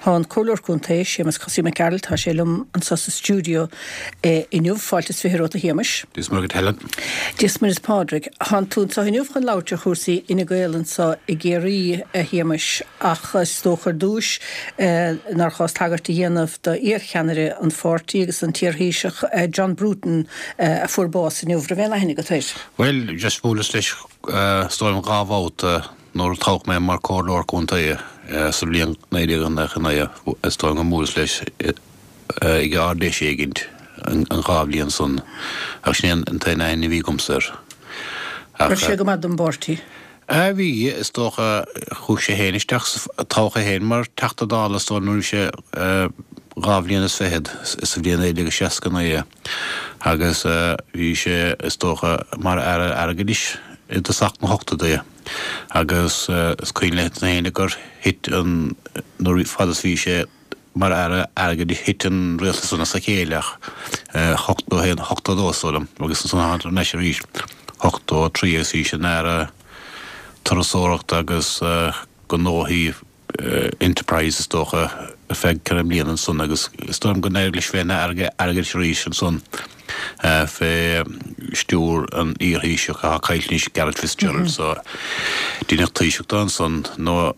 Tá an Comhairleoir Contae, Séamus Cosaí Mac Gearailt, tá sé liom anso sa stiúideo inniu. Fáilte is 20 romhat a Shéamais. Dia is Muire dhuit Helen. Dia is Muire is Pádraig. Tánn tú anso inniu chun labhairt ar chúrsaí Fhine Gael anso i gCiarraí, a Shéamais, ach is dócha ar dtúis nár chás tagairt a dhéanamh do iar-cheannaire an pháirtí agus an t-iar-Thaoiseach John Bruton a fuair bás inniu. Raibh aon aithne agat air? Bhuel, just bhuaileas leis is dóigh liom 2 bhabhta nuair a toghadh mé mar Comhairleoir Contae sa bhliain 1999, is dóigh liom go mbuaileas leis ag Ard-Fheis éigint an 2 bhliain san, ach sin é an t-aon aithne a bhí agamsa air. Ach. Raibh sé go maith don bpáirtí? A bhí, is dócha. Chuaigh sé féin isteach sa, toghadh é féin mar Teachta Dála is dóigh liom nuair a bhí sé 2 bhliain is fichead, sa bhliain 1969 agus bhí sé, is dócha, mar Aire Airgeadais i dtosach na hochtóidí agus is cuimhin le héinne gur thit an, nuair, fad is bhí sé Mar Aire Airgeadais thit an rialtas san as a chéile ach 81, 82 is dóigh liom agus ansan tháinig thar n-ais arís 83 agus bhí sé ina Aire Turasóireachta agus Gnóthaí Enterprise is dócha ar feadh ceithre mbliana ansan agus is dóigh liom go n-éirigh leis bheith ina Aire Airgeadais arís ansan. fé stiúir an iar-Thaoiseach atá caillte anois, Garret FitzGerald, so deineadh Taoiseach de ansan no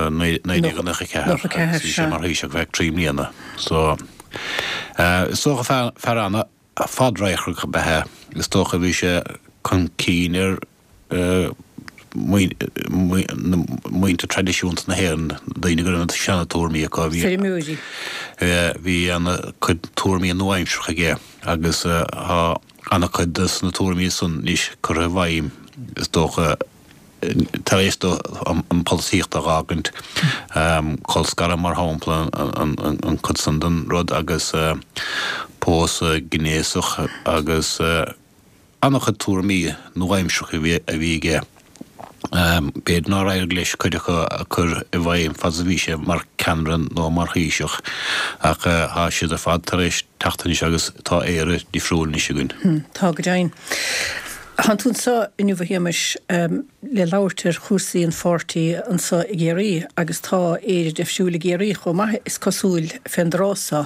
1994 agus bhí sé mar Thaoiseach ar feadh 3 mbliana. So is dócha fear fear an-fhadradharcach ab ea é. Is dócha bhí sé chun cinn ar muintir traidisiúnta na hÉireann, daoine go raibh na seana-tuairmí acu. Feirmeoirí. Bhí ana-chuid tuairmí nua-aimseartha aige agus tá ana-chuid de na tuairmí san anois curtha i bhfeidhm, is dócha, tar éis dó an pholaitíocht a dh'fhágaint. Colscaradh, mar shampla, an chuid san den rud agus pósadh gnéasach agus. An-chuid tuairimí nua-aimseartha a bhí aige. B'fhéidir nár éirigh leis cuid acu a chur i bhfeidhm fad is a bhí sé mar cheannaire nó mar Thaoiseach, ach tá siad ar fad tar éis teacht anois agus tá Éire difriúil anois againn. Tá, go deimhin. Tánn tú anseo inniu, a Shéamais, le labhairt ar chúrsaí an pháirtí anseo i gCiarraí agus tá Éire difriúil i gCiarraí chomh maith, is cosúil, fén dtráth seo.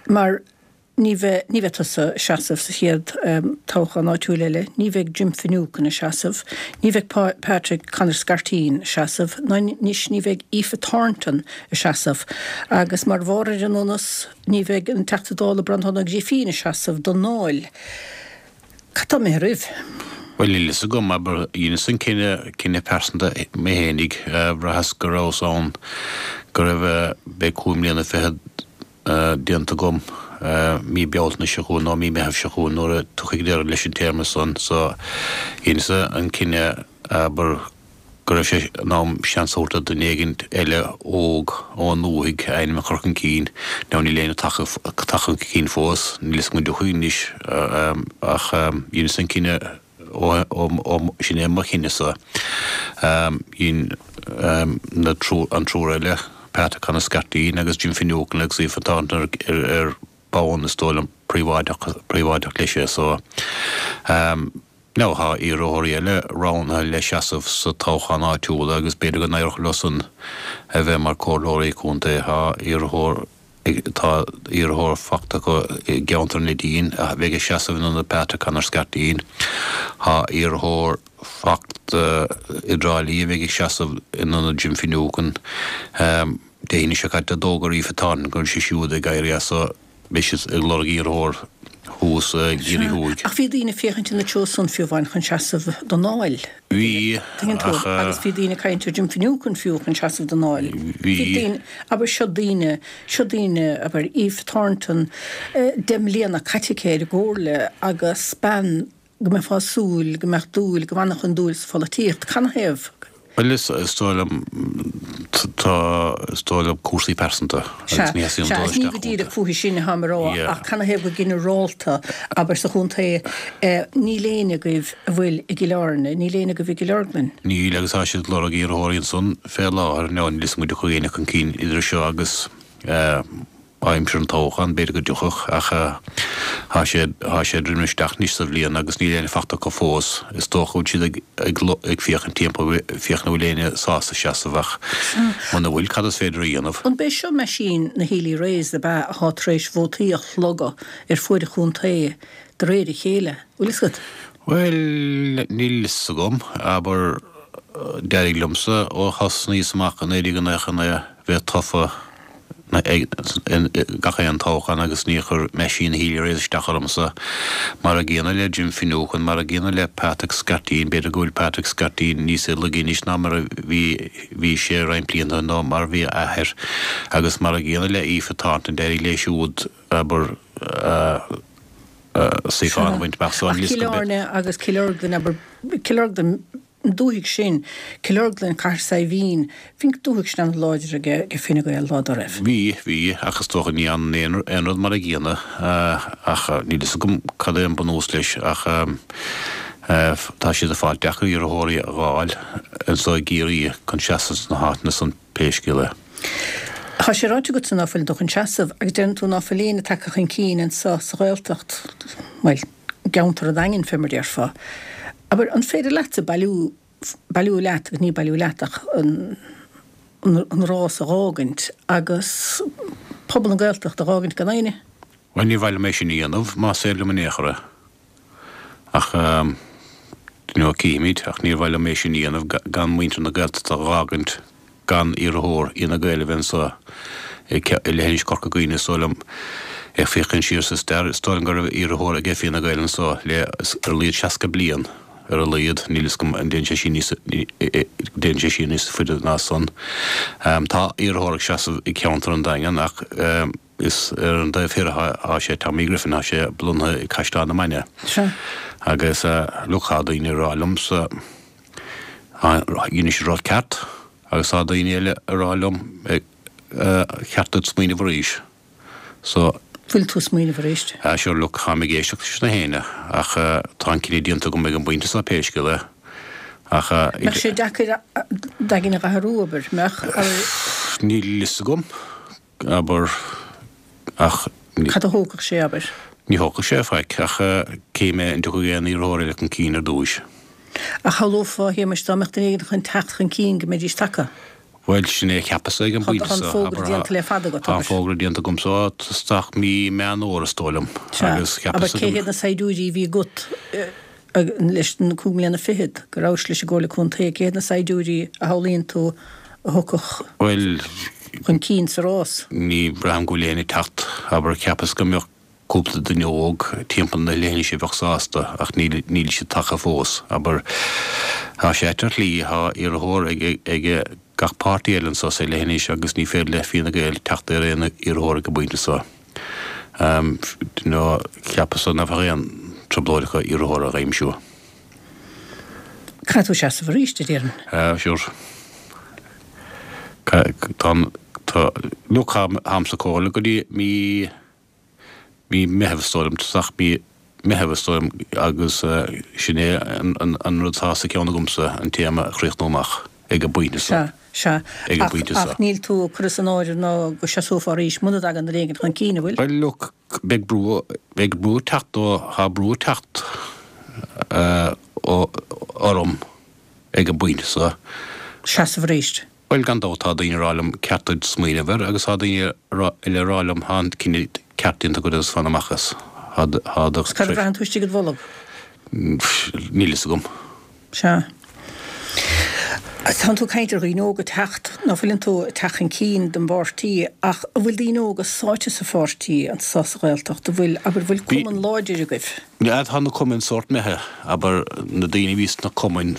Mar. Ní bheidh, ní bheidh tusa ag seasamh sa chéad toghchán áitiúil eile, ní bheidh Jim Finucane ag seasamh, ní bheidh Patrick Conor Scarteen ag seasamh, ná anois ní bheidh Aoife Thornton ag seasamh. Agus mar bharr ar an donas, ní bheidh an Teachta Dála Breandán Ó Grifín ag seasamh don nDáil. Cad tá imithe oraibh? Bhuel, níl fhios agam, abair, dheineas an cinneadh, cinneadh pearsanta mé fhéinig, bhraitheas go rabhas ann, go raibh, beidh cúig mbliana fichead, déanta agam mí Bealtaine seo chugainn nó mí Meitheamh seo chugainn nuair a tiocfaidh deireadh leis an téarma san. So, dheineas-sa an cinneadh, abair, go raibh sé in am seans a thabhairt do dhuine éigin eile óg ón ndúthaigh a ainm a chur chun cinn. Now níl éinne tagtha chun cinn fós, níl fhios agam an dtiocfaidh anois ach dheineas an cinneadh ó sin é mo chinneadh-sa. Dhein na an triúr eile, Pat Conor Scarteen agus Jim Finucane agus Aoife Thornton ar bonn is dóigh liom príobháideach leis é so. Now tá iarrthóirí eile roghnaithe le seasamh sa toghchán áitiúil agus b'fhéidir go n-éireodh leo san a bheith mar comhairleoirí contae. Tá iarrthóir Tá iarrthóir fachta acu i gceantar an Neidín a bheidh ag seasamh in ionad Patrick Conor Scarteen. Tá iarrthóir fachta i dTrá Lí a bheidh ag seasamh in ionad Jim Finucane. Dé hAoine seo caite d'fhógair Aoife Thornton go bhfuil sí siúd ag éirí as so beidh siad ag lorg iarrthóir thuas i gCiarraí Thuaidh. Ach bhí daoine ag féachaint ina treo san fiú amháin chun seasamh don Dáil. Bhí, Tuigeann tú, ach. Agus bhí daoine ag caint ar Jim Finucane fiú chun seasamh don Dáil. Bhí. Bhí daoine, abair, seo daoine, seo daoine, abair, Aoife Thornton, 10 mbliana caite aici ar an gComhairle agus bean go mbeifeá ag súil go mbeadh dúil, go bhfanfadh an dúil sa pholaitíocht. Canathaobh? Bhuel, is dóigh liom, tá, is dóigh liom cúrsaí pearsanta agus ní theastaíonn dul isteach iontu. Sea, is ní go díreach fúithi sin atáim a rá ach canathaobh go ginearálta, abair, sa chontae, níl éinne agaibh a bhfuil i gCill Airne, níl éinne agaibh i gCill Orglan. Níl agus tá siad ag lorg iarrthóirí ansan fé láthair, now níl fhios agam an dtiocfaidh éinne chun cinn idir seo agus. Aimsir an toghcháin, b'fhéidir go dtiocfadh, ach tá sé, tá sé ag druidim isteach anois sa bhliain agus níl éinne fachta acu fós. Is dócha go bhfuil siad ag, ag, ag féachaint timpeall, féachaint an bhfuil éinne sásta seasamh ach muna bhfuil, cad is féidir a dhéanamh? An b'é seo meaisín na Healy-Raes ab ea atá tar éis vótaí a shlogadh ar fuaid an chontae de réir a chéile? Bhfuil fhios agat? Bhuel, níl fhios agam. Abair, d'éirigh liomsa ó thosnaíos amach i 1999 bheith tofa gach aon toghchán agus níor chuir meaisín Healy-Raes isteach ormsa. Mar a gcéanna le Jim Finucane, mar a gcéanna le Patrick Scarteen, b'fhéidir go bhfuil Patrick Scarteen níos laige anois ná mar a bhí bhí sé roinnt blianta nó mar a bhí a athair, agus mar a gcéanna le Aoife Thornton, d'éirigh léi siúd, abair, suíochán a bhaint amach. So, Ach Cill Airne agus Cill Orglan, abair, Cill Orglan, an dúthaigh sin, Cill Orglan, Cathair Saidhbhín, bhí an dúthaigh sin an-láidir ag Fine Gael lá dá raibh. Bhí, bhí, ach is dócha ní fhanann aon rud mar a gcéanna, ach níl fhios agam cad é an bunús leis, ach tá siad ag fáil deacair iarrthóirí a dh'fháil anso i gCiarraí chun seasamh sna háiteanna san pé scéal é. Tá sé ráite agatsa ná fuileann tú chun seasamh, agus deireann tú ná fuil éinne tagtha chun cinn anso sa Ghaeltacht, bhuel, i gceantar an Daingin fé mar déarfá. Abair, an féidir leatsa bailiú, bailiú leat, agus ní bailiú leat ach an, an rás a dh'fhágaint agus pobal na Gaeltachta a dh'fhágaint gan éinne? Bhuel, ní mhaith liom é sin a dhéanamh, más féidir liom in aon chor é. Ach, you know, cífimid, ach níor mhaith liom é sin a dhéanamh gan muintir na Gaeltachta a dh'fhágaint gan iarrthóir Fhine Gael a bheith anso i leithinis Chorca Dhuibhne, is dóigh liom. Ag féachaint siar sa stair, is dóigh liom go raibh iarrthóir ag Fianna Gael anso le ar a laghad 60 bliain, ar a laghad, níl fhios agam an dtéann sé siar níos, dtéann sé siar níos faide ná san. Tá iarrthóir ag seasamh i gceantar an Daingin ach is ar an dtaobh thoir atá sé, Tommy Griffin, tá sé lonnaithe i gCaisleán na Mainge. Agus look, tá daoine ag rá liomsa, Dhein siad rud ceart agus tá daoine eile ag rá liom cheart duit smaoineamh arís. So. Bhfuil tú ag smaoineamh arís? Ah sure look, táim ag éisteacht leis na héinne ach tá an cinneadh déanta agam ag an bpointe seo pé scéal é. Ach. Mbeadh sé deacair d'aigne a athrú, abair, mbeadh? Níl fhios agam. abair, ach. Cad a thógfadh sé, abair? Ní thógfadh sé faic, ach cífidh mé an dtiocfaidh aon iarrthóir eile chun cinn ar dtúis. Ach shamhlófá, a Shéamais, dá mbeadh duine éigin chun teacht chun cinn, go mbeidís tagtha. Bhuel, sin é a cheapas-sa ag an bpointe seo. Tá an fógra déanta le fada agat, abair. Tá an fógra déanta agamsa ó isteach mí Meán Fhómhair, is dóigh liom. Sea. Abair, cé hiad na saighdiúirí a bhí agat leis na cúig mbliana fichead go rabhais leis an gComhairle Contae, cé hiad na saighdiúirí a shamhlaíonn tú a thiocfadh chun cinn sa rás? Ní bhraithim go bhfuil éinne ag teacht, abair, cheapas go mbeadh cúpla duine óg timpeall na leithinise a bheadh sásta ach níl, níl siad tagtha fós, abair. Tá sé ait ar shlí, tá iarrthóir ag, ag gach páirtí eile anso sa leithinis agus ní féidir le Fine Gael teacht ar aon iarrthóir ag an bpointe seo. Nó cheapas-sa nach bheadh aon trioblóid acu iarrthóir a aimsiú. Caithfidh tú seasamh arís, a déarfainn. Sure. Tá, tá, look, táim sa chomhairle go dtí mí, mí Meitheamh is dóigh liom, tosach mí Meitheamh is dóigh liom agus sin é an rud atá sa cheann agamsa, an téarma a chríochnú amach ag an bpointe seo. Sea, sea. Ag an bpointe seo. Ach níl tú ag cur as an áireamh ná go seasófá arís muna dtagann duine éigin chun cinn, an bhfuil? Bhuel, look, Beidh brú, beidh brú ag teacht ó, tá brú ag teacht ó, orm ag an bpointe seo. Seasamh arís. Bhuel, gan dabht tá daoine ag rá liom ceart duit smaoineamh air agus tá daoine eile ag rá liom tá an cinneadh ceart déanta agat agus fan amach as. Tá, tá do. Cad a bhraitheann tú istigh id bholg? Níl fhios agam. Sea. Tánn tú ag caint ar dhaoine óga ag teacht, ná fuileann tú ag teacht chun cinn don bpáirtí, ach an bhfuil daoine óga sáite sa pháirtí anso sa Ghaeltacht? An bhfuil, abair, an bhfuil cumann láidir agaibh? Yeah, tá na cumainn sórt imithe, abair, na daoine a bhí sna cumainn,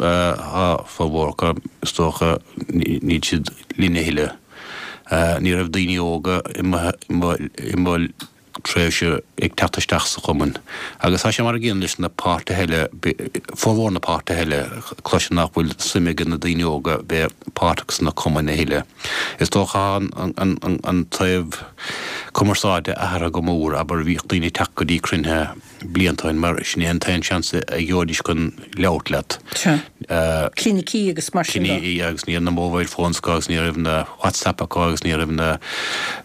tá formhór acu, is dócha, níl siad linn a thuilleadh. Ní raibh daoine óga i mo, i mo, i mo, tréimhse ag teacht isteach sa chumann. Agus tá sé mar an gcéanna leis na páirtithe eile, formhór na páirtithe eile, cloisim nach bhfuil suim ag na daoine óga bheith páirteach sna cumainn a thuilleadh. Is dócha an taobh. cumarsáide athraithe go mór, abair, bhíodh daoine ag teacht go dtí cruinnithe blianta ó shin mar sin é an t-aon seans a gheobhaidís chun labhairt leat. Sea. Clinicí agus mar sin de. Clinicí agus ní raibh na mobile phones acu agus ní raibh na WhatsApp acu agus ní raibh na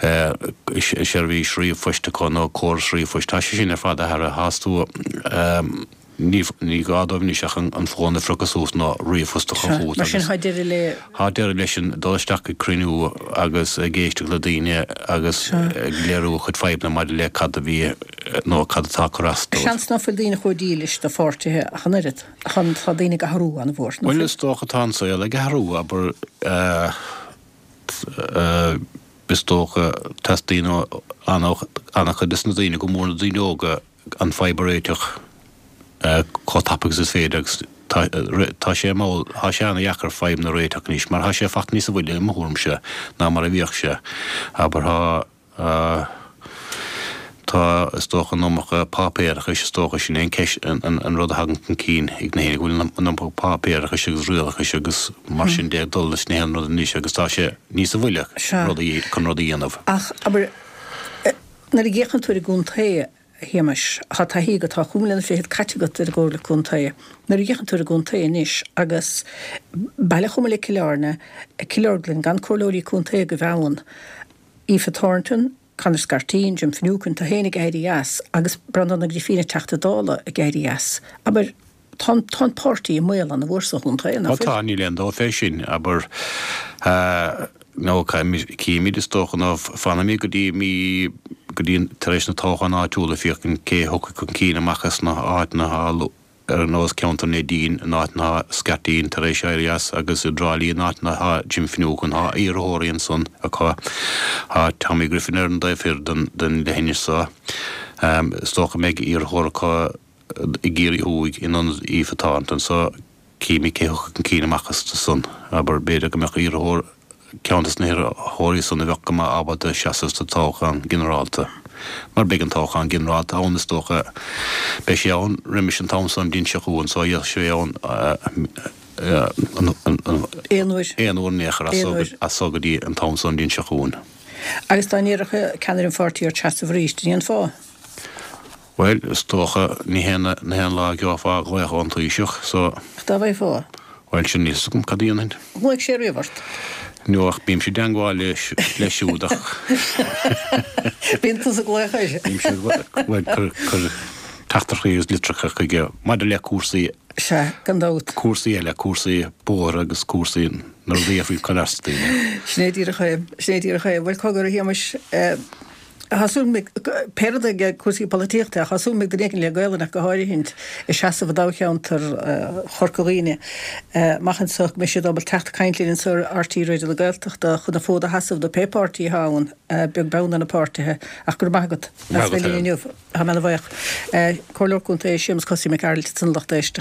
seirbhís ríomhphoist acu nó córas ríomhphoist. Tá sé sin ar fad athraithe. Tá tú. Ní gá dóibh anois ach an fón a phriocadh suas nó ríomhphost a chur chugat Mar sin, tá deireadh le. Tá deireadh leis an dul isteach ag cruinniú agus ag éisteacht le daoine agus ag léiriú a chuid fadhbanna maidir le cad a bhí nó cad atá ag cur as dóibh. Seans ná fuil daoine chomh dílis do pháirtithe ach an oiread. Tá daoine ag athrú an-mhór, ná fuil? Bhuel, is dócha tá an saol ag athrú, abair, is dócha teastaíonn ó an-chuid des na daoine, go mór na daoine óga, an fadhb a réiteach chomh tapa agus is féidir agus tá sé mall, tá sé ana-dheacair fadhbanna a réiteach anois mar tá sé fachta níosa mhoille i mo thuairimse ná mar a bhíodh sé. Abair tá, tá is dócha an iomarca páipéarachais is dócha sin é an ceist, an rud a thagann chun cinn ag na héinne go bhfuil an iomarca páipéarachais agus rialachais agus mar sin de ag dul leis na haon rud anois agus tá sé níosa mhoille rudaí chun rudaí a dhéanamh. Ach abair. Nuair a fhéachann tú ar an gcontae, a Shéamais, tá taithí agat, tá chúig mbliana fichead caite agat ar an gComhairle Contae. Nuair a fhéachann tú ar an gcontae anois agus baile chomh maith le Cill Airne, Cill Orglan, gan comhairleoirí contae agaibh ann, Aoife Thornton, Conor Scarteen, Jim Finucane, tú féin ag éirí as agus Breandán Ó Grifín an Teachta Dála ag éirí as. Abair, tá an, tá an páirtí i mbaol an-mhór sa chontae, nach fuil? Ó tá, níl aon dabht fé sin, abair, nó cífimid is dócha, nó fanfaimid go dtí mí, go dtí tar éis na toghcháin áitiúla féachaint cé a thiocfaidh chun cinn amach as na háiteanna atá ar nós ceantar Neidín, an áit atá Scarteen tar éis éirí as, agus i dTrá Lí an áit atá Jim Finucane, tá iarrthóirí ansan acu, tá Tommy Griffin ar an dtaobh thoir den, den leithinis so, is dócha go mbeidh iarrthóir acu i gCiarraí Thuaidh in ionad Aoife Thornton so cífimid cé thiocfaidh chun cinn amach astu san. Abair, b'fhéidir go mbeadh iarrthóir, ceann des na hiarrthóirí san a bheadh go maith ábalta seasamh sa toghchán ginearálta. Mar beidh an toghchán ginearálta ann is dócha, beidh sé ann roimis an t-am san an bhliain seo chugainn so bheadh sé ann aon uair. Aon uair in aon chor as so go dtí an t-am san an bhliain seo chugainn. Agus dá n-iarrfadh ceannaire an pháirtí ort seasamh arís, an ndéanfá? Bhuel, is dócha, ní hé ní hé an lá a gheofá glaoch ón Taoiseach, so. Ach dá bhfaighfeá? Bhuel, sin, níl 'fhios agam cad a dhéanfainn. Ghlaoigh sé riamh ort? No, ach bímse i dteangmháil leis, leis siúd ach. Bíonn tusa ag glaoch air. Bímse ag glaoch, bhuel, cur, cur teachtaireachtaí agus litreacha chuige maidir le cúrsaí. Sea, gan dabht. Cúrsaí eile, cúrsaí bóithre agus cúrsaí na rudaí a faoi cur as daoine. Sin é díreach é, sin é díreach é. Bhuel, cogar, a Shéamais, Tá súil agam, pé rud é cúrsaí polaitíochta, ach tá súil agam go mbeidh duine éigin le Gaolainn ach go háirithint ag seasamh i dtoghcheantar Chorca Dhuibhne amach anseo go mbeidh siad ábalta teacht ag caint linn anseo ar RTÉ Raidió na Gaeltachta chun an fód a sheasamh do pé páirtí atá ann, beag beann ar na páirtithe. Ach go raibh maith agat as bheith linn inniu. Tá mé ana bhuíoch. Comhairleoir Contae Séamus Cosaí Mac Gearailt ansan a lucht éisteachta.